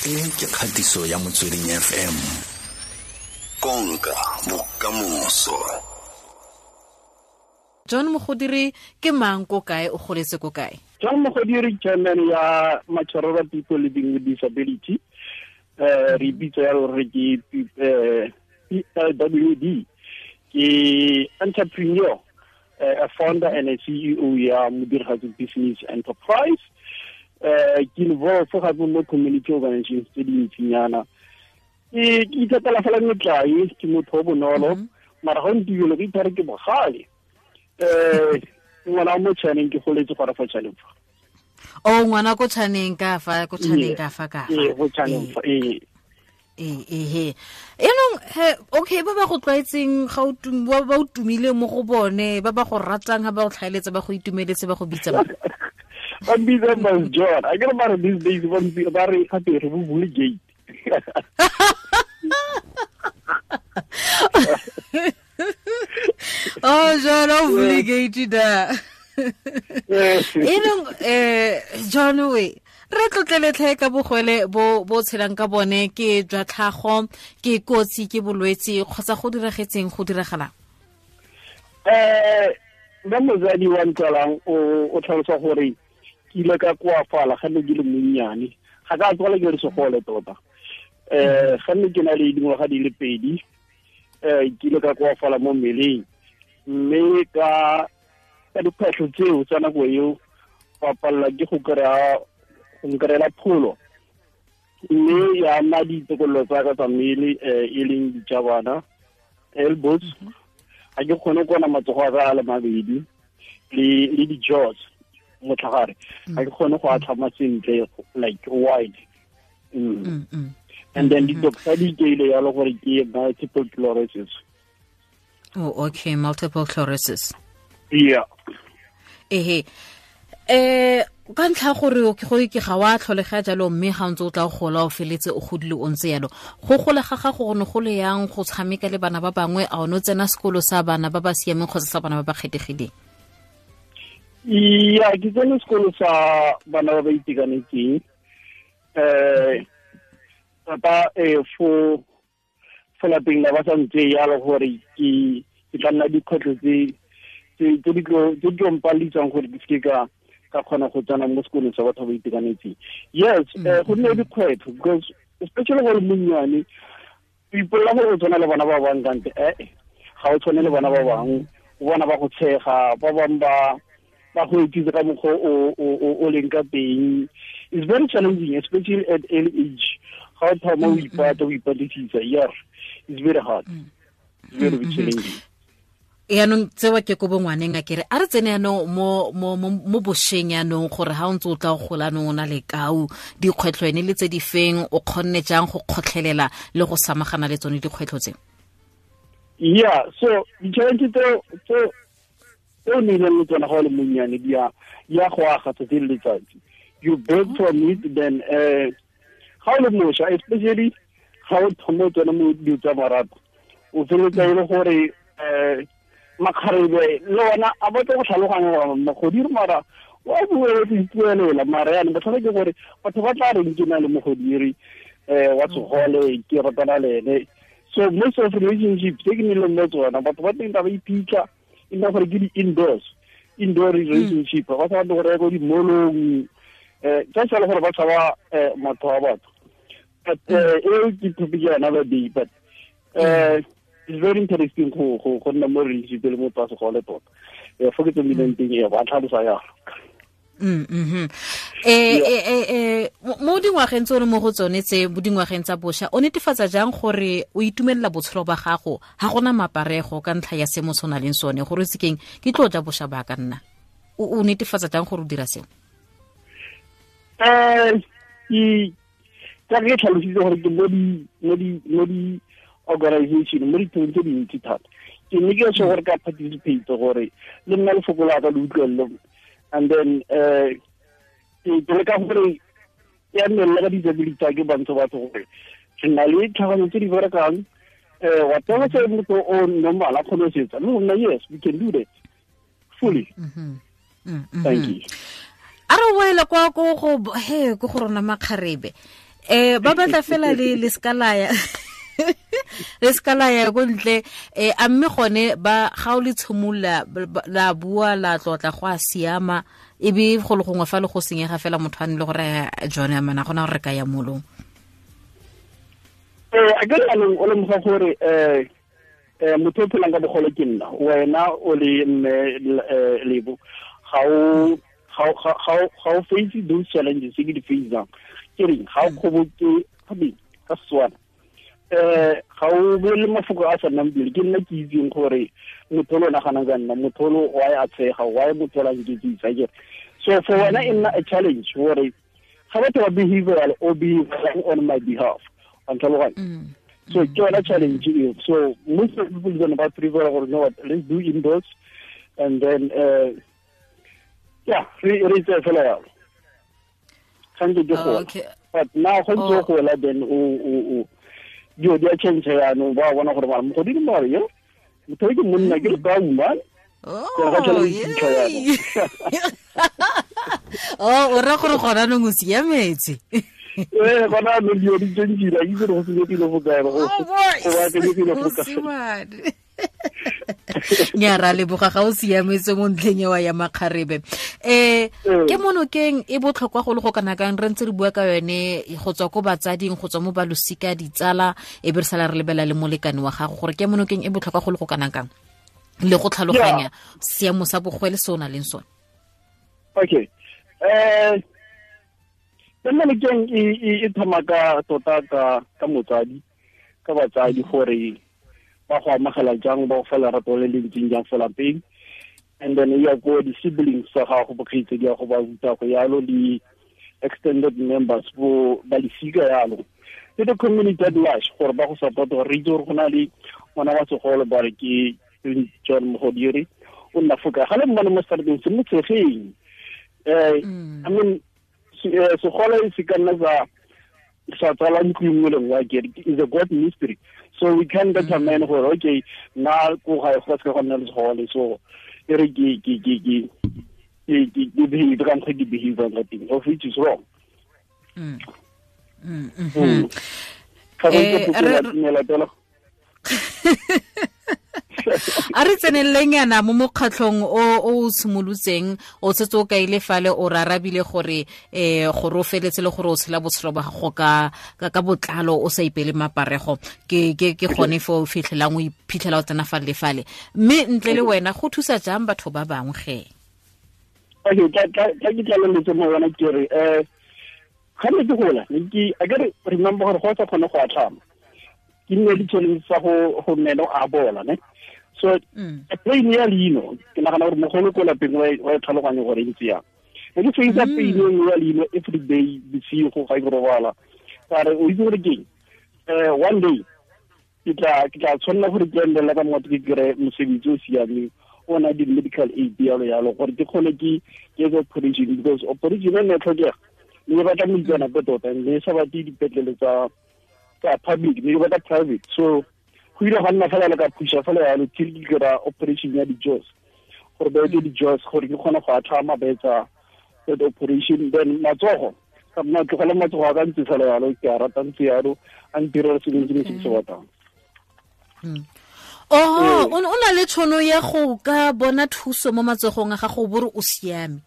E ke kgatiso ya Motsweding FM. Konka bokamoso. John Mogodiri ke mang, ko kae, o goletse ko kae? John Mogodiri, chairman ya Machororo People Living with Disability. Re bitsa ya gore ke PLWD. Ke entrepreneur, a founder and a CEO ya Modirigatsi Business Enterprise. Ke involved gape mo community organizations tse dintsinyana. Ke ithatela fela metlae, ke motho o bonolo, mara ga ntibelo ke ithare ke bogale. Ngwana mo Chaneng, ke goletse gora fa Chaneng fa. O ngwana ko Chaneng ka fa, ko Chaneng ka fa ka fa. Ee, go Chaneng fa, ee. Ee, enong he, okay, ba ba go tlwaetseng ga o ba o tumile mo go bone, ba ba go ratang, ha ba go tlhaeletsa, ba go itumeletse, ba go bitsa ba. Ba bitsa ba John. A ke re ba re these days ba ntse ba re gape re bo bule gate. Oh, John, o bule gate da. Enong John, we re tlotleletlhe ka bogwele bo bo tshelang ka bone, ke jwa tlhago, ke kotsi, ke bolwetse, kgotsa go diragetseng, go diragalang? Ba mozadi wa ntlalang o tlhalosa gore ke ile ka koafala ga ne ke le monnyane, ga ka tswala ke re segole tota. Ga ne ke na le dingwaga di le 2, ke ile ka koafala mo mmeleng, mme ka dikgwetlho tseo tsa nako eo ba palela ke go kry-a go nkrela pholo, mme ya nna ditokololo tsa ka tsa mmele, e leng dijabana, elbows, ga ke kgone kona matsogo a ka a le mabedi, le di-jaws motlhagare, ga ke kgone go atlhama sentle, like wide. And then di-doctor di ikeile yalo gore ke multiple sclerosis. Oh, okay, multiple sclerosis. Yeah. Ehe. Ka ntlha gore ke go ke ga wa tlholega jalo, mme ga ntse o tla gola o feletse o godile o ntse yalo. Go gola ga gago go ne go le yang go tshameka le bana ba bangwe, a o ne o tsena sekolo sa bana ba ba siameng kgotsa sa bana ba ba kgethegileng? Ya, ke tsene sekolo sa bana ba ba itekanetseng. Papa fo lapeng la ba sa ntse yalo gore ke tla nna dikgwetlho tse di tlo mpalitsang gore ke seke ka kgona go tsena mo sekolong sa batho ba itekanetseng. Yes, go nne dikgwetlho because especially gore monnyane o ipolela gore o tshwana le bana ba bangwe, kante ga o tshwane le bana ba bangwe, o bona ba go tshega, ba bangwe ba go etsitse ka mokgwa o leng ka teng. It's very challenging, especially at early age. Ga o thoma o ipata, o ipatlisisa, yeah, it's very hard. It's very challenging. Yaanong tsewa ke ko bongwaneng, a kere a re tsene yaanong mo bošweng yaanong, gore ga o ntse o tla go gola anong o na le kau, dikgwetlho ene le tse di feng, o kgonne jang go kgotlhelela le go samagana le tsone dikgwetlho tse? Yeah, so di-challenge tse o nnileng le tsona ga o le monnyane di ya go aga tsatsi le letsatsi. You build from it, then ga o le mošwa, especially ga o thoma o tsena mo dilo tsa marato, o feleletsa e le gore makgarebe le ona a batla go tlhaloganya gore mogodiri mara wa bua o ipuelela, mara yana botlhale ke gore batho ba tla reng ke na le mogodiri wa segole, ke ratana le ene. So most of relationships tse ke nnileng mo tsona, batho ba teng ba iphitlha, e nna gore ke di-indoors, indoor relationship, ba sa batle go reka ko di-mall-ong, just fela gore ba tshaba motho wa batho. But eo ke topic ya another day, but it's very interesting go nna mo relationship le motho wa segole tota. Fo ke tsomileng teng, ba tlhalosa yalo. Mo dingwageng tse o le mo go tsone tse, mo dingwageng tsa bošwa, o netefatsa jang gore o itumelela botshelo ba gago, ga gona maparego ka ntlha ya seemo se o nang le sone, gore o sekeng ke tlo ja bošwa ba ka nna? O netefatsa jang gore o dira seo? Ka ke tlhalositse gore ke mo di organization, mo dithong tse dintsi thata. Ke ne ke se gore ka participate gore le nna lefoko la ka le utlwelele. And then ke leka gore ya nne le ka disability tsa ke bantsho batho gore re na le tlhaganyo tse di berekang, whatever se motho o normal a kgone go se etsa, le rona, yes, we can do that fully. Thank you. A re boele kwa ko go he ko go rona makgarebe. Ba batla fela le skalaya. Le skalaya go ntle a mme gone ba ga o le tshimolla la bua la tlotla go a siama e be go le gongwe fa le go senyega fela motho a ne le gore John amana gona gore re ka ya molong. A ke re o lemoga gore motho o phelang ka bogole ke nna, wena o le mme Lebo, ga o face those challenges tse ke di facang. Ke reng ga o kgoboke ka Setswana, ga o bolele mafoko a sa nnang pele. Ke nna ke itseng gore motho o naganang ka nna, motho o why a tshega, why motho o nketsisa ke. So for wena e nna a challenge gore ga batho ba behavioral o behavioral on my behalf. So ke yona challenge eo. So most of people gonna ba prefer gore no, what, let's do indoors and then yeah, re tse fela yalo. Gantsi ke gola. But now go ntse go gola then o dio di a change yaanong, ba bona gore mara mogodimo mare yo motho ke monna ke le ka uma. Oh, o ra gore gona nong o siametse. Gona nong dio di change-ile, a itse gore go senyegile fo kae, go baakanyegile fo kae. Nya ra leboga ga o siametse mo ntlheng eo ya makgarebe. Ke monokeng e botlhokwa go le go kana kang re ntse re bua ka yone go tswa ko batsading, go tswa mo balosika, ditsala, e be re sala re lebela le molekane wa gago gore ke monokeng e botlhokwa go le go kana kang le go tlhaloganya seemo sa bogwele se o na leng sone. Okay. Ke monokeng e thoma ka tota ka motsadi, ka batsadi gore ba go amogela jang, ba go fa lerato le le ntseng jang fo lapeng, and then ya ko di-siblings tsa gago, bokgaitsedi ya go ba ruta go yalo, le extended members bo ba lesika yalo, le the community at large gore ba go support, gore re itse gore go na le ngwana wa segolo ba re ke John Mogodiri o nna fo kae, ga le mmone mo strateng se mo tshegeng. I mean segolo se ka nna sa tsala ntlo nngwe le nngwe, akere is a god mystery. So we can determine gore okay nna ko gae go se go nna le segole, so e re ke behave ka mokgwa ke behave ka teng, of which is wrong. A re tseneleng yana mo mokgatlhong o simolotseng, o setse o kaile fale o rarabile gore gore o feletse le gore o tshela botshelo ba gago ka botlalo o sa ipele maparego, ke gone fo o fitlhelang o iphitlhela o tsena fale le fale. Mme ntle le wena go thusa jang batho ba bangwe ge? Okay, tla ke tlaleletse mo wena ke re ga ne ke gola a ke re remember gore go sa kgone go atlhama, ke nne di-challenge tsa go meno a bola ne. So pain ya leino ke nagana gore mogolo ko lapeng wa e tlhaloganya gore e ntse yang. Ne ke face pain ya leino every day bosigo ga ke robala, ka re o itse gore keng, one day ke tla tshwanela gore ke endela ka motho ke kry mosebetsi o siameng o na di-medical aid yalo yalo gore ke kgone ke etse operation, because operation e ne e tlhokega, ne ke batla moitseanape tota, ne sa batle dipetlele tsa public, ne ke batla private. So go ile ga nna fela le ka phusha fela yalo till ke kry-a operation ya di-jaws, gore ba etse di-jaws gore ke kgone go atlhama ba etsa that operation. Then matsogo ka nna tlogela matsogo a ka ntse fela yalo, ke a rata ntse yalo, a ntirela sengwe se se batlang. Oh, o na le tshono ya go ka bona thuso mo matsogong a gago bore o siame.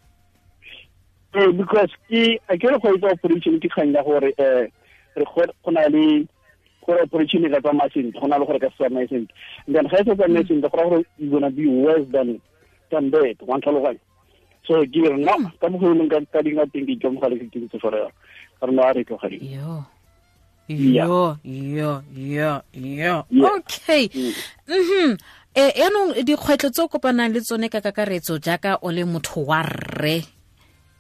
Because ke a ke re go etsa operation ke kgang ya gore re go na le gore operation e ka tsamaya sentle, go na le gore ka se tsamaye sentle. And then ga e sa tsamaye sentle go raya gore you gonna be worse than that, wa ntlhaloganya. So ke re no, ka mokgwa o leng ka dinga teng ke ikamogela ke ntse fela yalo, ka re no a re tlogeleng. Yo. Okay. Yaanong dikgwetlho tse o kopanang le tsone ka kakaretso jaaka o le motho wa rre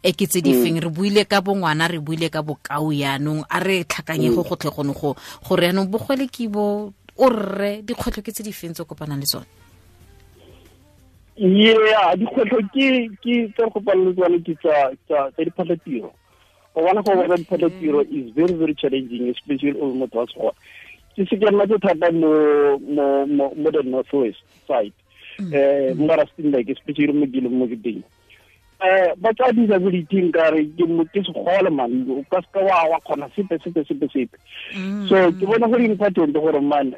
e ke tse di feng? Re buile ka bongwana, re buile ka bokao, yaanong a re tlhakanye go gotlhe gone go gore yaanong bogwele ke bo o rre, dikgwetlho ke tse di feng tse o kopanang le tsone? Yeah, dikgwetlho ke tse re kopanang le tsone ke tsa diphatlhatiro. O bona go bona diphatlhatiro is very very challenging, especially o motho wa segole. Ke se ke nna tse thata mo the north west side, mo Rustenburg, especially mo ke leng mo ke teng. Ba tsa disability nkare ke segole man, o ka seka wa kgona sepe. So ke bona gore important gore man,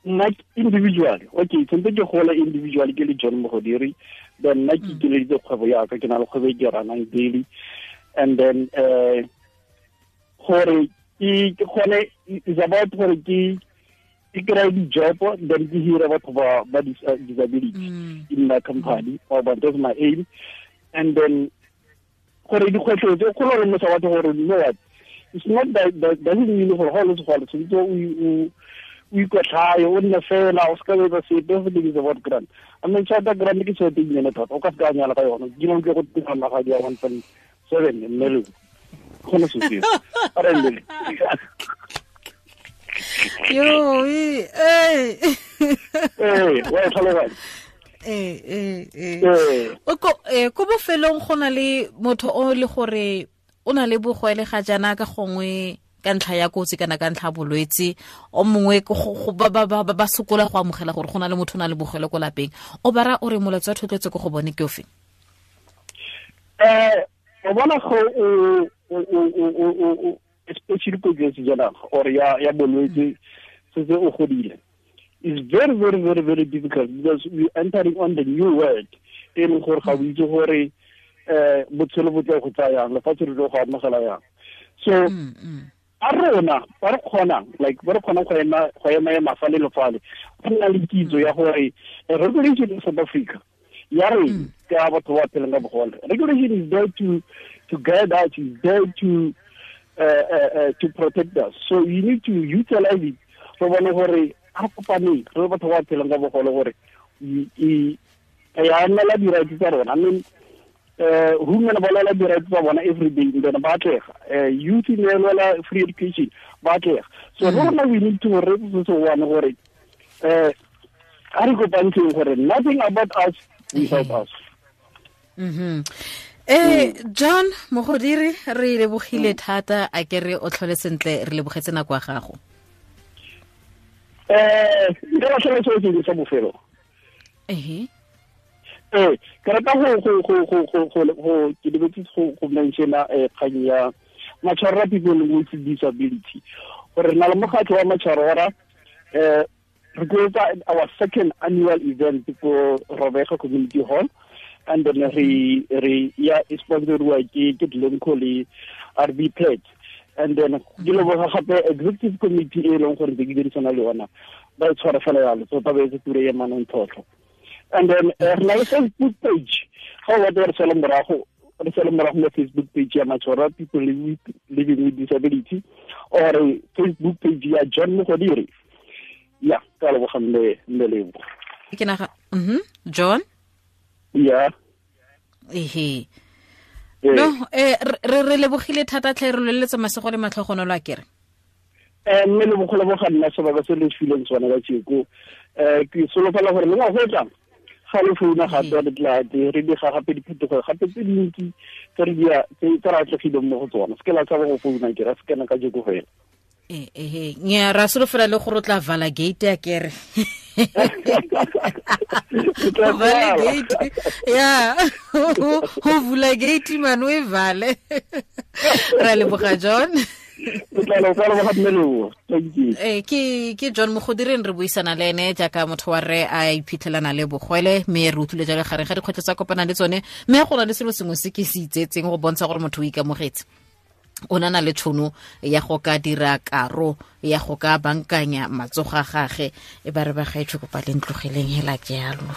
nna individual, okay, tshwanetse ke gola individual ke le John Mogodiri, then nna ke ikeleditse kgwebo ya ka, ke na le kgwebo e ke ranang daily, and then gore ke kgone, is about gore ke kry di-job, then ke hire batho ba disability in my company, or but that's my aim. And then gore dikgwetlho tse kgolo re mosa batho gore you know what, it's not that doesn't mean gore ga o le segole tshwanetse o ikotlhaye o nne fela o seka etsa sepe. Everything is about grant. I mean, tšhelete grant ke tšhelete e nnyane thata, o ka seka nyala ka yona. Ke ke go tira magadi ya 1.7 mme le kgone se seo. Yo, eh. Wa tlhaloganya. Ko bofelong go na le motho o le gore o na le bogwele ga jana ka gongwe ka ntlha ya kotsi kana ka ntlha bolwetse, o mongwe ba sokola go amogela gore go na le motho o na le bogwele ko lapeng, o bara o re molaetsa wa thotloetso ko go bone ke ofe? O bona go o especially ko sejanaga or ya bolwetse setse o godile, is very very very very difficult because we entering on the new world e leng gore ga o itse gore botshelo bo tla go tsaya yang, lefatshe le tlo go amogela yang. So a rona ba re kgonang, like ba re kgonang go ema fale le fale, go nna le kitso ya gore regulation in South Africa ya re ka batho ba phelang ka bogole, regulation is there to guide us, is there to protect us. So you need to utilize it. Re bone gore a re kopaneng re batho ba phelang ka bogole gore ya nna la di-rights tsa rona. I mean, women ba lwela di-rights tsa bona every day, then ba atlega. Youth ne lwela free education, ba atlega. So rona we need to re se one gore a re kopantsheng gore nothing about us without us. John Mogodiri, re lebogile thata, a ke re o tlhole sentle, re lebogetse nako ya gago. Nka latlhela seo sengwe sa bofelo. Ke rata go ke lebetse go mentiona kgang ya Matshwarora people with disability, gore re na le mokgatlho wa Matshwarora. Re tlo our second annual event ko Robega Community Hall, and then re ya sponsoriwa ke Glencore le RB Pledge, and then ke leboga gape executive committee e leng gore ke dirisana le yona, ba e tshwara fela yalo, so ba etse tiro ya manontlhotlho. And then re na le Facebook page, ga o batla re sala morago mo Facebook page ya Matshwarora people living with disability, or Facebook page ya John Mogodiri. Ya, ka leboga mme Lebo. Ke naga John? Yeah. Ehe. No, re lebogile thata tlhe, re leletse masego le matlhogonolo a kere. Mme le bogolo bo ga nna sebaka se le fileng tsona ka tsheko. Ke solofela gore le ngwaga o tlang ga le founa gape re tla re diga gape diphetogo gape tse dintsi tse re tse re atlegileng mo go tsona. Se ke la tshaba go founa ke ra se kena ka jeko fela. Nya ra solofela le gore o tla vala gate ya kere. Vala gate. Ya. Ho vula gate man o e vale. Ra leboga John. Ke John Mogodiri re buisana le ene jaaka motho wa re a iphitlhelana le bogwele, mme re utlwile jalo gare ga dikgwetlho tsa kopana le tsone, mme go na le selo sengwe se ke se itsetseng go bontsha gore motho o ikamogetse, o na le tšhono ya go ka dira karo ya go ka bankanya matsogo a gage. E ba re ba gaetsho kopa le ntlogeleng hela jalo.